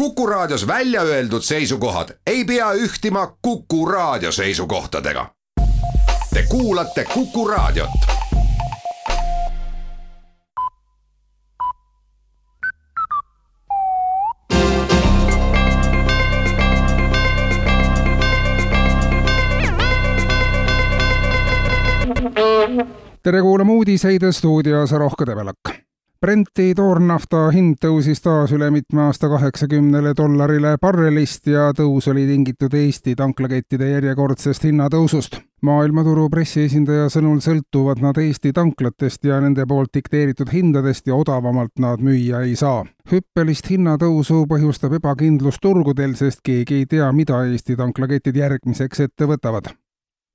Kuku Raadios välja öeldud seisukohad ei pea ühtima Kuku Raadio seisukohtadega. Te kuulate Kuku Raadiot. Tere kuulama uudiseid stuudios Rohke Debelak. Brenti toornafta hind tõusis taas üle mitme aasta $80 barrelist ja tõus oli tingitud Eesti tanklakettide järjekordsest hinnatõusust. Maailmaturu pressiesindaja sõnul sõltuvad nad Eesti tanklatest ja nende poolt dikteeritud hindadest ja odavamalt nad müüa ei saa. Hüppelist hinnatõusu põhjustab ebakindlus turgudel, sest keegi ei tea, mida Eesti tanklaketid järgmiseks ette võtavad.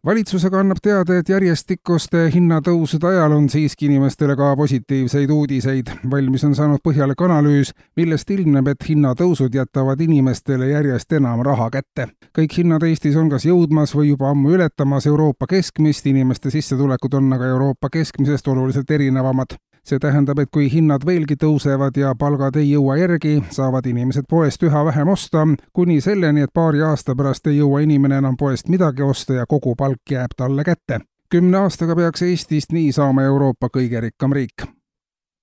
Valitsusega annab teada, et järjestikuste hinnatõusude ajal on siiski inimestele ka positiivseid uudiseid. Valmis on saanud põhjalik analüüs, millest ilmneb, et hinnatõusud jätavad inimestele järjest enam raha kätte. Kõik hinnad Eestis on kas jõudmas või juba ammu ületamas Euroopa keskmist, inimeste sissetulekud on aga Euroopa keskmisest oluliselt erinevamad. See tähendab, et kui hinnad veelgi tõusevad ja palgad ei jõua järgi, saavad inimesed poest üha vähem osta, kuni selleni, et paari aasta pärast ei jõua inimene enam poest midagi osta ja kogu palk jääb talle kätte. 10 aastaga peaks Eestist nii saama Euroopa kõige rikkam riik.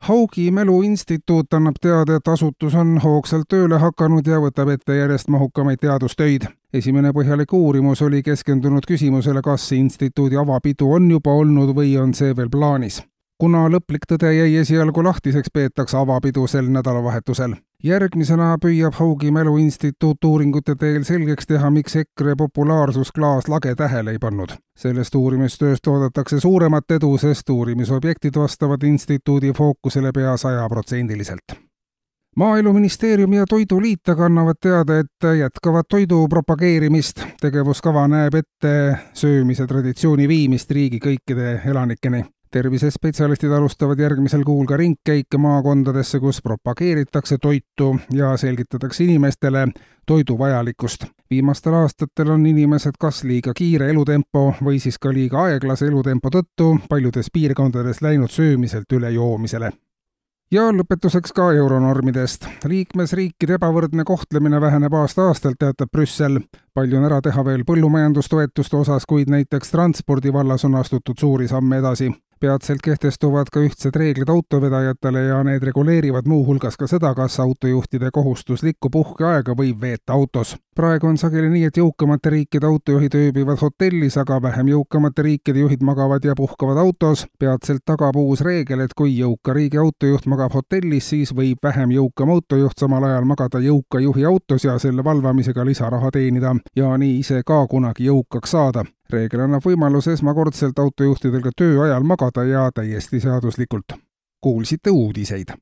Haugi Mäluinstituut annab teada, et asutus on hoogsalt tööle hakanud ja võtab ette järjest mahukamaid teadustöid. Esimene põhjalik uurimus oli keskendunud küsimusele, kas instituudi avapidu on juba olnud või on see veel plaanis. Kuna lõplik tõde jäi esialgu lahtiseks, peetakse avapidu sel nädalavahetusel. Järgmisena püüab Haugi Mäluinstituut uuringute teel selgeks teha, miks EKRE populaarsus klaaslage tähele ei pannud. Sellest uurimistööst oodatakse suuremat edu, sest uurimisobjektid vastavad instituudi fookusele pea 100%. Maaeluministeerium ja Toiduliit aga annavad teada, et jätkavad toidu propageerimist. Tegevuskava näeb ette söömise traditsiooni viimist riigi kõikide elanikeni. Tervisespetsialistid alustavad järgmisel kuul ka ringkäike maakondadesse, kus propageeritakse toitu ja selgitatakse inimestele toidu vajalikkust. Viimastel aastatel on inimesed kas liiga kiire elutempo või siis ka liiga aeglase elutempo tõttu paljudes piirkondades läinud söömiselt üle joomisele. Ja lõpetuseks ka euronormidest. Liikmesriikide ebavõrdne kohtlemine väheneb aasta-aastalt, teatab Brüssel. Palju on ära teha veel põllumajandustoetuste osas, kuid näiteks transpordi vallas on astutud suuri samme edasi. Peatselt kehtestuvad ka ühtsed reeglid autovedajatele ja need reguleerivad muu hulgas ka seda, kas autojuhtide kohustuslikku puhkeaega võib veeta autos. Praegu on sageli nii, et jõukamate riikide autojuhid ööbivad hotellis, aga vähem jõukamate riikide juhid magavad ja puhkavad autos. Peatselt tagab uus reegel, et kui jõuka riigi autojuht magab hotellis, siis võib vähem jõukam autojuht samal ajal magada jõuka juhi autos ja selle valvamisega lisaraha teenida ja nii ise ka kunagi jõukaks saada. Reegel annab võimaluse esmakordselt autojuhtidel ka töö ajal magada ja täiesti seaduslikult. Kuulsite uudiseid.